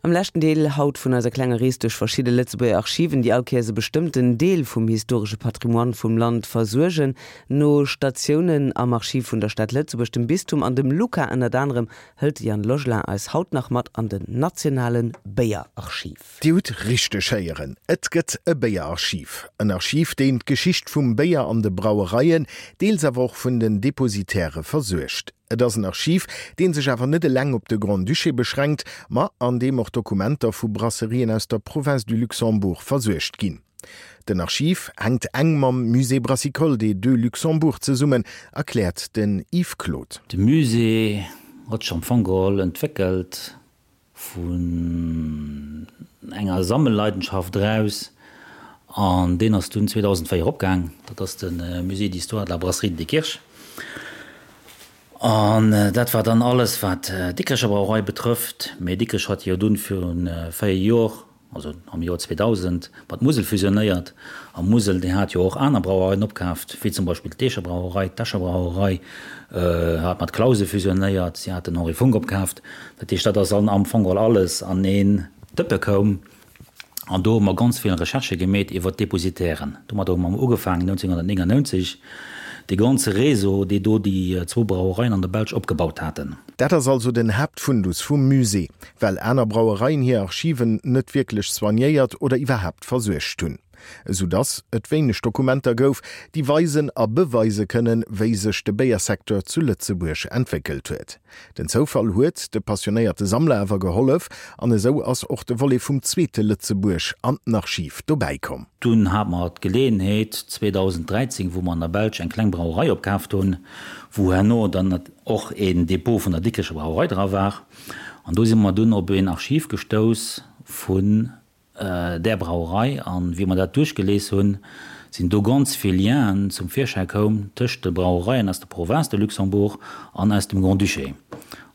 Am leschten Deel haut vun eiser klenger Rees duerch verschidde Lëtzebuerger Archiven, déi all Kéiers e bestëmmten Deel vum historesche Patrimoine vum Land versuergen. No Statiounen am Archiv vun der Stad Lëtzebuerg, dem Bistum an dem LUCA ënnert anerem, hëlt de Yann Logelin eis haut nach mat an den nationale Béierarchiv. Dir hutt richteg héieren, et gëtt e Béierarchiv. En Archiv, deen d'Geschicht vum Béier an de Brauereien, deels awer och vun den Depositaire versuergt. Et ass en Archiv, dee sech awer net eleng op de Grand-Duché beschränkt, ma an deem och Dokumenter vu Brasserien aus der Province du Luxembourg versuergt ginn. Den Archiv hänkt eng mam Musée brassicole des Deux Luxembourg zesummen, erkläert den Yves Claude. De Musée huet sech am Fong geholl entwéckelt vun enger Sammelleidenschaft eraus an deen ass dunn 2004 opgaang. Dat ass de Musée d'histoire de la brasserie de Diekirch. An dat war dann alles wat d'Dikrecher Brauerei betrëfft. Mee Dikrech hat jo dunn viru 4 Jor also am Joer 2000, mat Musel fusionéiert. A Musel, déi hat jo och aner Brauereien opkaaft, wéi zum Beispill d'Eecher Brauerei, d'Escher Brauerei hat mat Clausen fusionéiert, si hat den Henri Funck opkaaft. Dat heescht, dat ass am Fong geholl alles an een Dëppe koum. An do hu mer ganz vill Recherchë gemeet iwwer d'Depositairen. Domadder hu mer ugefaangen 1999, dee ganze Réseau, dee do déi zwou Brauereien an der Belsch opgebaut haten. Dat ass also den Haaptfundus vum Musée, well aner Brauereien hir Archiven net wierklech soignéiert oder iwwerhaapt versuergt hunn, esou dass et wéineg Dokumenter gouf, déi weisen a beweise kënnen, wéi sech de Béiersecteur zu Lëtzebuerg entwéckelt huet. Den Zoufall huet de passionéierte Sammler awer gehollef an esou ass och de Volet vum zweete Lëtzebuerg an den Archiv dobäi komm. Dunn hate mer d'Geleeënheet 2013, wou mer an der Belsch eng kleng Brauerei opkaaft hunn, wou herno dann och een Depot vun der Dikrecher Brauerei dra war. An do si mer dunn op een Archiv gestouss vun där Brauerei. An wéi mer dat duerchgelies hunn, sinn do ganz vill Lienen zum Virschäi koum tëscht de Brauereien aus der Province de Luxembourg an aus dem Grand-Duché.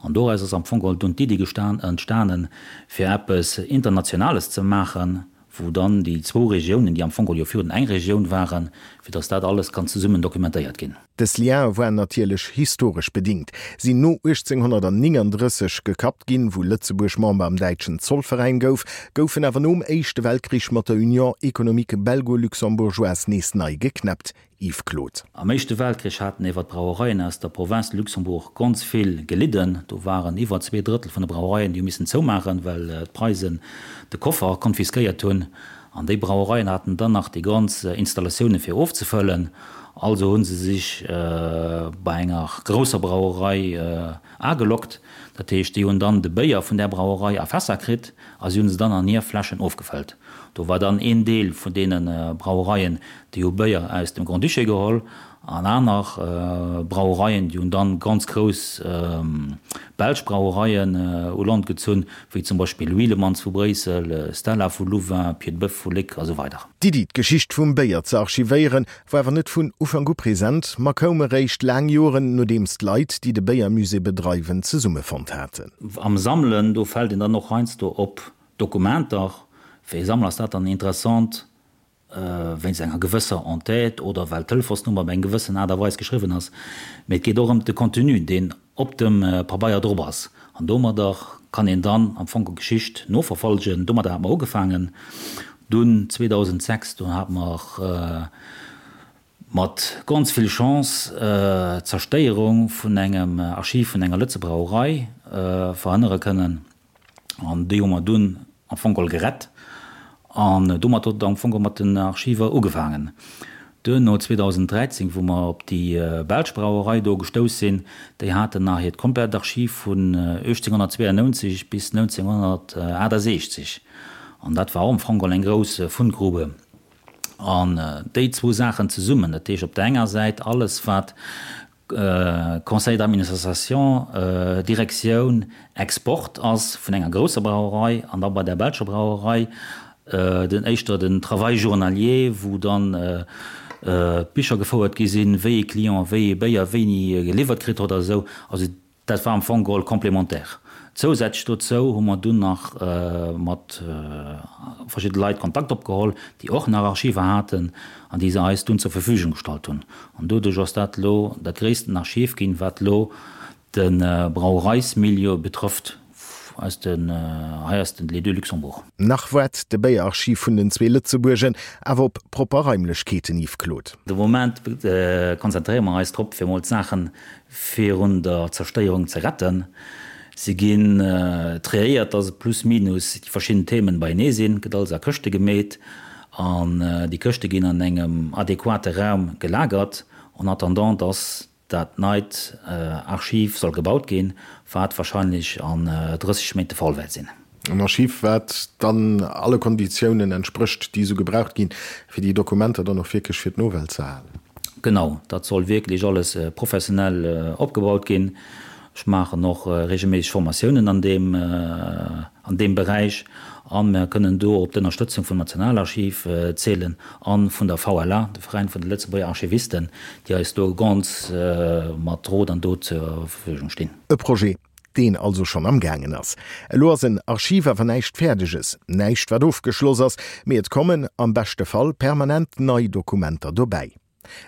An doraus ass am Fong geholl dunn d'Iddi entstanen, fir eppes Internationales ze maachen, wou dann déi zwou Regiounen, déi am Fong geholl jo virun eng Regioun waren, fir datt dat alles kann zesummen dokumentéiert ginn. Dës Liene waren natierlech historesch bedingt, sinn no 1839 gekappt ginn, wou Lëtzebuerg Member am däitschen Zollveräin gouf, goufen awer nom Éischte Weltkrich mat der Union économique belgo-luxembourgeoise nees nei geknäppt. Yves Claude. Am Éischte Weltkrich haten ewer d'Brauereien aus der Province de Luxembourg ganz vill gelidden. Do waren iwwer 2/3 vun de Brauereien, déi hu missen zoumaachen, well d'Preisen de Koffer konfiskéiert hunn. An déi Brauereien haten dann nach déi ganz Installatioune fir ofzefëllen. Also hu se sech bei enger grousser Brauerei ageloggt. Dat heescht, déi hunn dann de Béier vun där Brauerei a Fässer kritt a si hu se dann an hir Fläschen ofgefëllt. Do war dann een Deel vun deene Brauereien, déi hu Béier aus dem Grand-Duché geholl an aner Brauereien, déi hunn dann ganz grouss belsch Brauereien u Land gezunn, wéi zum Beispill Wielemans vu Bréissel, Stella vu Louvain, Piedboeuf vu Léck a sou weider. D'Iddi, d'Geschicht vum Béier ze archivéieren, war awer net vun Ufank u present, ma koum eréischt laang Joren, nodeems d'Leit, déi de Béiermusée bedreiwen, zesummefonnt haten. Am Sammelen, do fält een dann och heiansdo op Dokumenter. Fir ee Sammler ass dat dann interessant, wéinst enger gewësser Entête oder well d'Telefonsnummer op eng gewëssen Aart a Weis geschriwwen ass, mee et geet och ëm de Contenu, deen op dem Pabeier drop ass. An domadder kann een dann am Fong d'Geschicht noverfolgen. Domadder hate mer ugefaangen. Dunn 2006, do hate mer mat ganz vill Chance d'Zerstéierung vun engem Archiv vun enger Lëtze Brauerei verhënnere kënnen. An déi hu mer dunn am Fong geholl gerett. An domat huet et am Fong geholl mat den Archiver ugefaangen. Duerno, 2013, wou mer op déi belsch Brauerei do gestouss sinn, déi haten nach hiert komplett Archiv vun 1892 bis 1968. An dat war och am Fong geholl eng grouss Fundgrube. An déi zwou Saachen zesummen, dat heescht op der enger Säit alles, wat Conseil d'administration, Direktioun Export ass vun enger grousser Brauerei an da bei der belscher Brauerei den éischter den Travail journalier, wou dann d'Bicher gefouert gi sinn, wéi ee Client wéi ee Béier wéini geliwwert kritt huet a sou. Also Dat war am Fong geholl complémentaire. Zousätzlech dozou hu mer dunn nach mat verschidde Leit Kontakt opgeholl, déi och nach Archiver haten an déi se eis dunn zur Verfügung gestallt hunn. An doduerch ass dat elo dat gréissten Archiv ginn, wat elo de Brauereismilieu betrëfft. aus den, hei aus den Les Deux Luxembourg. Nach waart de Béierarchiv vun den zwee Lëtzebuergen awer op propper Raimlechkeeten, Yves Claude. De Moment konzentréiere mer eis drop, fir mol d'Saache virun der Zerstéierung ze retten. Se ginn triéiert, dass et plus minus déi verschidden Themen beienee sinn, gëtt alles a Këschte gemeet an déi Këschte ginn an engem adequate Raum gelagert en attendant, dass dat neit Archiv soll gebaut ginn, wat wahrscheinlech an 30 Méint de Fall wäert sinn. En Archiv, wat dann alle Konditiounen entsprécht, déi esou gebraucht ginn, fir déi Dokumenter dann och wierklech fir d'Nowelt ze erhalen. Genau, dat soll wierklech alles professionell opgebaut ginn. Ech maachen och regelméisseg Formatiounen an deem, an deem Beräich a mer kënnen do op d'Ënnerstëtzung vum Nationalarchiv zielen a vun der VLA, de Veräin vun de Lëtzebuerger Archivisten, déi eis do ganz mat Rot an Dot zur Verfügung stinn. E Projet, deen also schonn am gaangen ass. Elo ass en Archiv awer näischt Fäerdeges, näischt wat ofgeschloss ass, mee et kommen, am beschte Fall, permanent nei Dokumenter dobäi.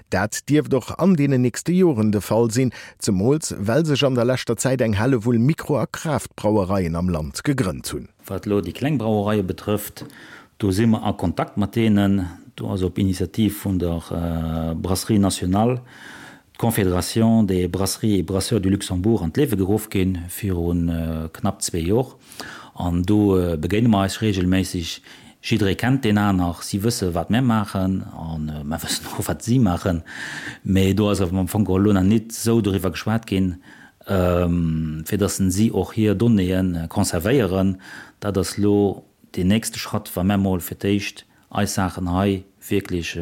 Dat dierft och an deenen nächste Joren de Fall sinn, zemools well sech an der leschter Zäit eng Hellewull Mikro a Craft-Brauereien am Land gegrënnt hunn. Wat elo déi kleng Brauereie betrëfft, do si mer a Kontakt mat deenen. Do ass op Initiativ vun der Brasserie nationale d'Confédération des brasseries et brasseurs du Luxembourg an d'Liewe geruff gi viru knapp zwee Jor. An do begéine mer eis reegelméisseg. Jidderee kennt deen aner, si wësse wat mär maachen a mär wëssen och wat si maachen. Mee do ass awer am Fong geholl elo nach nit esou doriwwer geschwat ginn, fir datt si och hir Donnéeë conservéieren. Dat ass elo deen nächste Schratt, wa mär mol fir d'éischt eis Saachen hei wierklech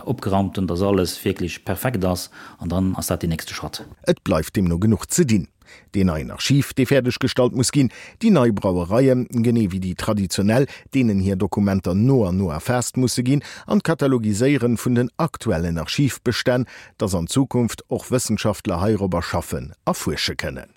opgeraumt hunn, dass alles wierklech perfekt ass, an dann ass dat deen nächste Schratt. Et bleift deemno genuch ze dinn. Deen neien Archiv, dee fäerdeg gestallt muss ginn, déi nei Brauereien, genee wéi déi traditionell, deenen hir Dokumenter no an no erfaasst musse ginn, an d'Katalogiséieren vun den aktuellen Archivbestänn, dass an Zukunft och Wëssenschaftler heirobber schaffen a fuersche kënnen.